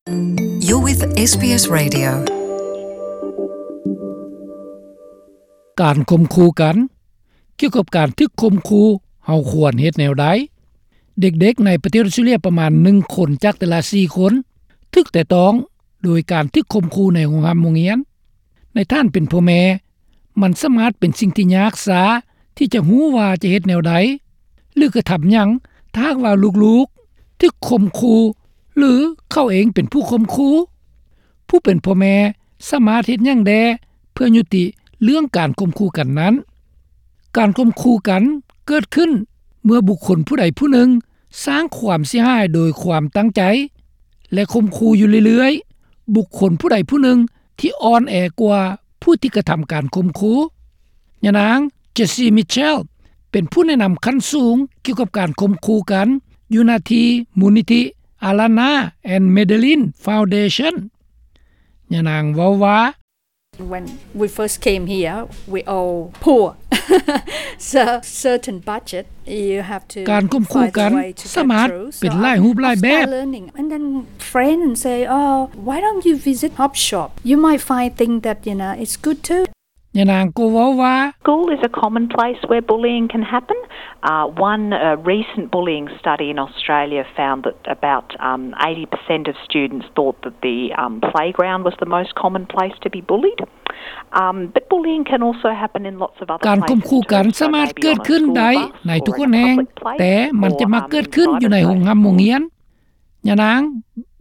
You're with ເອສບີເອສ Radio. ການຂົ່ມຂູ່ກັນ. ກ່ຽວກັບການຖືກຂົ່ມຂູ່, ເຮົາຄວນເຮັດແນວໃດ? ເດັກໆໃນປະເທດອອສເຕຣເລຍປະມານໜຶ່ງຄົນຈາກແຕ່ລະສີ່ຄົນ ຖືກແຕະຕ້ອງໂດຍການຖືກຂົ່ມຂູ່ໃນໂຮງຮ່ຳໂຮງຮຽນ. ໃນທ່ານເປັນພໍ່ແມ່, ມັນສາມາດເປັນສິ່ງທີ່ຍາກຊ້າທີ່ຈະຮູ້ວ່າຈະເຮັດແນວໃດ ຫຼື ກະທຳຫຍັງ ຖ້າຫາກວ່າລູກໆຖືກຂົ່ມຂູ່ ຫຼື ເຂົາເອງເປັນຜູ້ຂົ່ມຂູ່. ຜູ້ເປັນພໍ່ແມ່ສາມາດເຮັດຫຍັງແດ່ເພື່ອຍຸຕິເລື່ອງການຂົ່ມຂູ່ກັນນັ້ນ? ການຂົ່ມຂູ່ກັນເກີດຂຶ້ນເມື່ອບຸກຄົນຜູ້ໃດຜູ້ໜຶ່ງສ້າງຄວາມເສຍຫາຍໂດຍຄວາມຕັ້ງໃຈ ແລະ ຂົ່ມຂູ່ຢູ່ເລື້ອຍໆ ບຸກຄົນຜູ້ໃດຜູ້ໜຶ່ງທີ່ອ່ອນແອກວ່າຜູ້ທີ່ກະທຳການຂົ່ມຂູ່. ຍານາງ Jessie Mitchell ເປັນຜູ້ແນະນຳຂັ້ນສູງກ່ຽວກັບການຂົ່ມຂູ່ກັນ ຢູ່ໜ້າທີ່ມູນນິທິ Alana and Madeline Foundation. ຍານາງເວົ້າວ່າ When we first came here, we all poor. So, certain budget, you have to ການຂົ່ມຂູ່ກັນສາມາດເປັນຫຼາຍຮູບຫຼາຍແບບ. And then friends say, "Oh, why don't you visit Hop Shop? You might find things that, you know, it's good too." ຍານາງກໍເວົ້າວ່າ School is a common place where bullying can happen. Uh, one, uh, recent bullying study in Australia found that about, um, eighty percent of students thought that the, um, playground was the most common place to be bullied. Um, but bullying can also happen in lots of other places too. ການຂົ່ມຂູ່ກັນສາມາດເກີດຂຶ້ນໄດ້ໃນທຸກແຫ່ງ, ແຕ່ມັນຈະມັກເກີດຂຶ້ນຢູ່ໃນໂຮງຮ່ຳໂຮງຮຽນ. ຍານາງ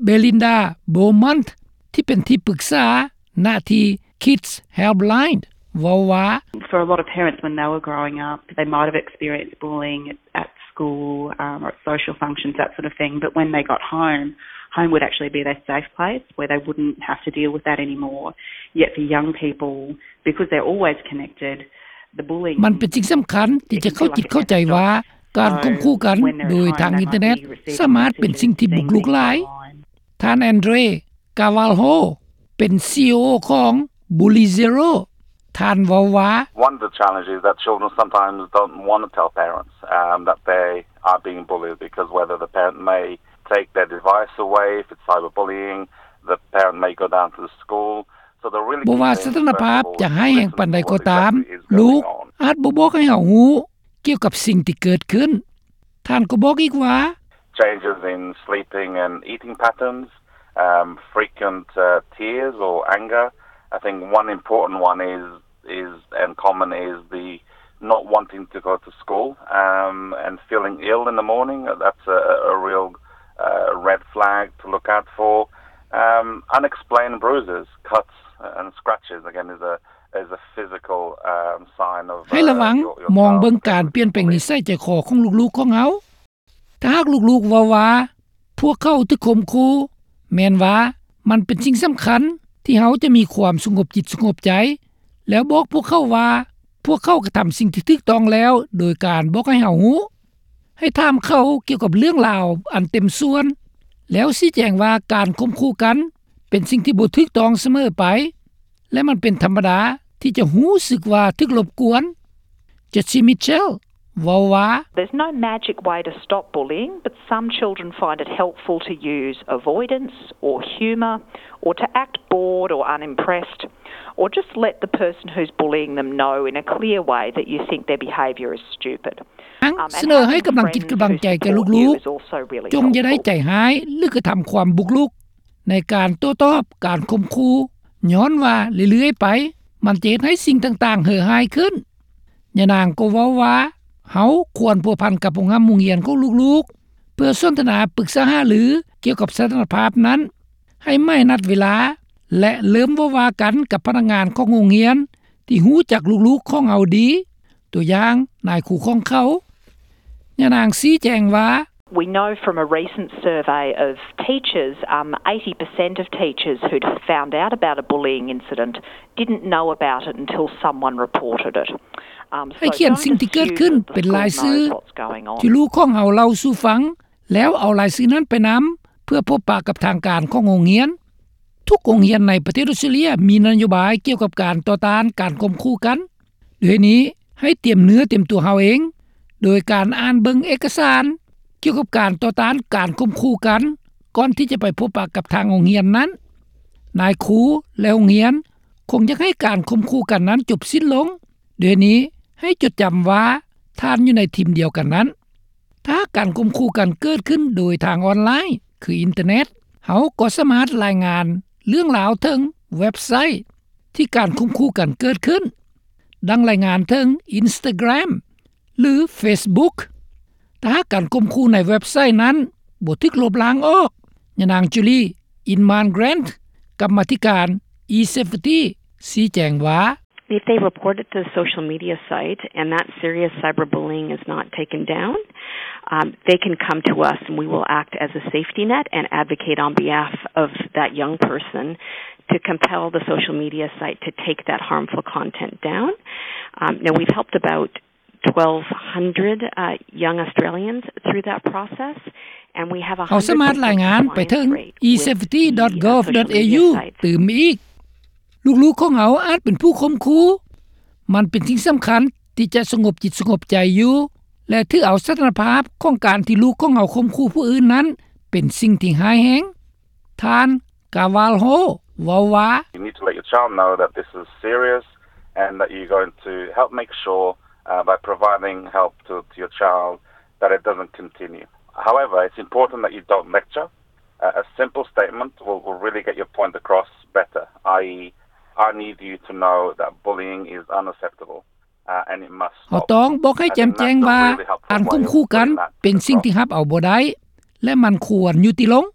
Belinda Beaumont ທີ່ເປັນທີ່ປຶກສາໜ້າທີ່ Kids Helpline ເວົ້າວ່າ For a lot of parents, when they were growing up, they might have experienced bullying at school, um, or at social functions, that sort of thing. But when they got home, home would actually be their safe place where they wouldn't have to deal with that anymore. Yet for young people, because they're always connected, the bullying ມັນເປັນສິ່ງສຳຄັນທີ່ຈະເຂົ້າຈິດເຂົ້າໃຈວ່າ ການຂົ່ມຂູ່ກັນໂດຍທາງອິນເຕີເນັດສາມາດເປັນສິ່ງທີ່ບຸກລຸກຫຼາຍ. ທ່ານ Andre Carvalho ເປັນ CEO ຂອງ Bully Zero. ທ່ານເວົ້າວ່າ One of the challenges is that children sometimes don't want to tell parents, um, that they are being bullied, because whether the parent may take their device away, if it's cyberbullying, the parent may go down to the school. So the really ບໍ່ວ່າສະຖານະພາບຈະຮ້າຍແຮງປານໃດກໍຕາມ, ລູກອາດບໍ່ບອກໃຫ້ເຮົາຮູ້ກ່ຽວກັບສິ່ງທີ່ເກີດຂຶ້ນ. ທ່ານກໍບອກອີກວ່າ Changes in sleeping and eating patterns, um, frequent, uh, tears or anger. I think one important one is, is, and common is the not wanting to go to school, um, and feeling ill in the morning. That's a, a real, uh, red flag to look out for. Um, unexplained bruises, cuts, and scratches, again, is a, is a physical, um, sign of, uh, ໃຫ້ລະວັງ, ມອງເບິ່ງການປ່ຽນແປງນິໄສໃຈຄໍຂອງລູກໆຂອງເຮົາ. ຖ້າຫາກລູກໆເວົ້າວ່າພວກເຂົາຖືກຂົ່ມຂູ່, ແມ່ນວ່າມັນເປັນສິ່ງສຳຄັນທີ່ເຮົາຈະມີຄວາມສະຫງົບຈິດສະຫງົບໃຈ ແລ້ວບອກພວກເຂົາວ່າພວກເຂົາກະທຳສິ່ງທີ່ຖືກຕ້ອງແລ້ວ ໂດຍການບອກໃຫ້ເຮົາຮູ້. ໃຫ້ຖາມເຂົາກ່ຽວກັບເລື່ອງລາວອັນເຕັມສ່ວນ ແລ້ວຊີ້ແຈງວ່າການຂົ່ມຂູ່ກັນເປັນສິ່ງທີ່ບໍ່ຖືກຕ້ອງສະເໝີໄປ ແລະ ມັນເປັນທຳມະດາທີ່ຈະຮູ້ສຶກວ່າຖືກລົບກວນ. Jessie Mitchell ເວົ້າວ່າ There's no magic way to stop bullying, but some children find it helpful to use avoidance or humour or to act bored or unimpressed or just let the person who's bullying them know in a clear way that you think their behaviour is stupid. ສະເໜີໃຫ້ກຳລັງຈິດກຳລັງໃຈແກ່ລູກໆ, ຈົ່ງຢ່າໄດ້ໃຈຮ້າຍ ຫຼື ກະທຳຄວາມບຸກລຸກໃນການໂຕ້ຕອບການຂົ່ມຂູ່ ຍ້ອນວ່າເລື້ອຍໆໄປ ມັນຈະເຮັດໃຫ້ສິ່ງຕ່າງໆເຫີຮ້າຍຂຶ້ນ. ຍານາງກໍເວົ້າວ່າ ເຮົາຄວນພົວພັນກັບໂຮງຮ່ຳໂຮງຮຽນຂອງລູກໆ ເພື່ອສົນທະນາປຶກສາຫາລືກ່ຽວກັບສະຖານະພາບນັ້ນ, ໃຫ້ໃໝ່ນັດເວລາ ແລະ ເລີ່ມເວົ້າວ່າກັນກັບພະນັກງານຂອງໂຮງຮຽນທີ່ຮູ້ຈັກລູກໆຂອງເຮົາດີ, ຕົວຢ່າງນາຍຄູຂອງເຂົາ. ຍານາງຊີ້ແຈງວ່າ We know from a recent survey of teachers, um, eighty percent of teachers who'd found out about a bullying incident didn't know about it until someone reported it. Um, ໃຫ້ຂຽນສິ່ງທີ່ເກີດຂຶ້ນເປັນລາຍຊື່ທີ່ລູກຂອງເຮົາເລົ່າສູ່ຟັງ, ແລ້ວເອົາລາຍຊື່ນັ້ນໄປນຳເພື່ອພົບປະກັບທາງການຂອງໂຮງຮຽນ. ທຸກໂຮງຮຽນໃນປະເທດອອສເຕຣເລຍມີນະໂຍບາຍກ່ຽວກັບການຕໍ່ຕ້ານການຂົ່ມຂູ່ກັນ. ດ້ວຍນີ້, ໃຫ້ຕຽມເນື້ອຕຽມຕົວເຮົາເອງ ໂດຍການອ່ານເບິ່ງເອກະສານກ່ຽວກັບການຕໍ່ຕ້ານການຂົ່ມຂູ່ກັນ ກ່ອນທີ່ຈະໄປພົບປະກັບທາງໂຮງຮຽນນັ້ນ. ນາຍຄູ ແລະ ໂຮງຮຽນ ຄົງຢາກໃຫ້ການຂົ່ມຂູ່ກັນນັ້ນຈົບສິ້ນລົງ. ດ້ວຍນີ້ ໃຫ້ຈົດຈຳວ່າທ່ານຢູ່ໃນທີມດຽວກັນນັ້ນ. ຖ້າຫາກການຂົ່ມຂູ່ກັນເກີດຂຶ້ນໂດຍທາງອອນລາຍ ຄືອິນເຕີເນັດ, ເຮົາກໍສາມາດລາຍງານເລື່ອງລາວເຖິງເວັບໄຊທີ່ການຂົ່ມຂູ່ກັນເກີດຂຶ້ນ, ດັ່ງລາຍງານເຖິງ Instagram ຫຼື Facebook. ຖ້າຫາກການຂົ່ມຂູ່ໃນເວັບໄຊນັ້ນບໍ່ຖືກລົບລ້າງອອກ, ຍານາງ Julie Inman Grant ກຳມາທິການ eSafety ຊີ້ແຈງວ່າ, If they report it to the social media site and that serious cyberbullying is not taken down, um, they can come to us and we will act as a safety net and advocate on behalf of that young person to compel the social media site to take that harmful content down. Um, now, we've helped about twelve hundred, uh, young Australians through that process, and we have ເຮົາສາມາດລາຍງານໄປເຖິງ eSafety.gov.au ຕື່ມອີກ. ລູກໆຂອງເຮົາອາດເປັນຜູ້ຂົ່ມຂູ່. ມັນເປັນສິ່ງສຳຄັນທີ່ຈະສະຫງົບຈິດສະຫງົບໃຈຢູ່ ແລະ ຖືເອົາສະຖານະພາບຂອງການທີ່ລູກຂອງເຮົາຂົ່ມຂູ່ຜູ້ອື່ນນັ້ນເປັນສິ່ງທີ່ຮ້າຍແຮງ. ທ່ານ Carvalho ເວົ້າວ່າ, You need to let your child know that this is serious and that you're going to help make sure, uh, by providing help to, to your child, that it doesn't continue. However, it's important that you don't lecture. Uh, a simple statement will, will really get your point across better, i.e., I need you to know that bullying is unacceptable, uh, and it must stop. ເຮົາຕ້ອງບອກໃຫ້ແຈ່ມແຈ້ງວ່າ ການຂົ່ມຂູ່ກັນເປັນສິ່ງທີ່ຮັບເອົາບໍ່ໄດ້ ແລະ ມັນຄວນຍຸຕິລົງ.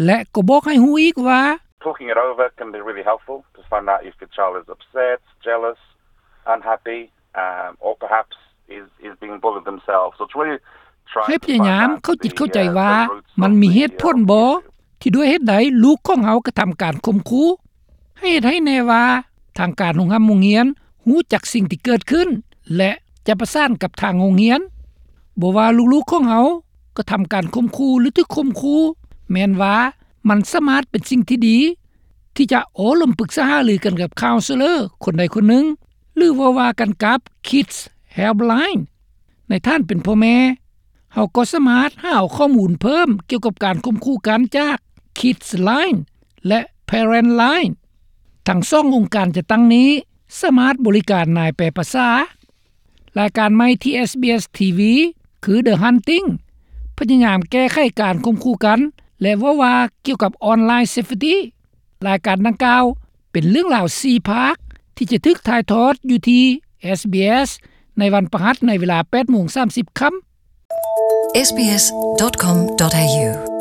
ແລະ ກໍບອກໃຫ້ຮູ້ອີກວ່າ, Talking it over can be really helpful to find out if your child is upset, jealous, unhappy, um, or perhaps is, is being bullied themselves. So it's really trying to find out the, uh, the roots of the, uh, the issue. ໃຫ້ພະຍາຍາມເຂົ້າຈິດເຂົ້າໃຈວ່າ ມັນມີເຫດຜົນບໍ່ ທີ່ດ້ວຍເຫດໃດລູກຂອງເຮົາກະທຳການຂົ່ມຂູ່. ໃຫ້ເຫດໃຫ້ແນ່ວ່າ ທາງການໂຮງຮ່ຳໂຮງຮຽນຮູ້ຈັກສິ່ງທີ່ເກີດຂຶ້ນ ແລະ ຈະປະສານກັບທາງໂຮງຮຽນ. ບໍ່ວ່າລູກໆຂອງເຮົາກະທຳການຂົ່ມຂູ່ ຫຼື ຖືກຂົ່ມຂູ່, ແມ່ນວ່າມັນສາມາດເປັນສິ່ງທີ່ດີ ທີ່ຈະໂອ້ລົມປຶກສາຫາລືກັນກັບ counselor ຄົນໃດຄົນໜຶ່ງ ຫຼື ເວົ້າວ່າກັນກັບ Kids Helpline. ໃນຖານເປັນພໍ່ແມ່, ເຮົາກໍສາມາດຫາເອົາຂໍ້ມູນເພີ່ມກ່ຽວກັບການຂົ່ມຂູ່ກັນຈາກ Kids Line ແລະ Parent Line. ທັງສອງອົງການຈັດຕັ້ງນີ້ສາມາດບໍລິການນາຍແປປະສາ. ລາຍການໃໝ່ທີ່ SBS TV ຄື The Hunting ພະຍາຍາມແກ້ໄຂການຂົ່ມຂູ່ກັນ ແລະ ເວົ້າວ່າກ່ຽວກັບ online safety. ລາຍການດັ່ງກ່າວເປັນເລື່ອງລາວສີ່ພາກ ທີ່ຈະຖືກຖ່າຍທອດຢູ່ທີ່ SBS ໃນວັນພະຫັດໃນເວລາແປດໂມງສາມສິບຄ່ຳ. SBS.com.au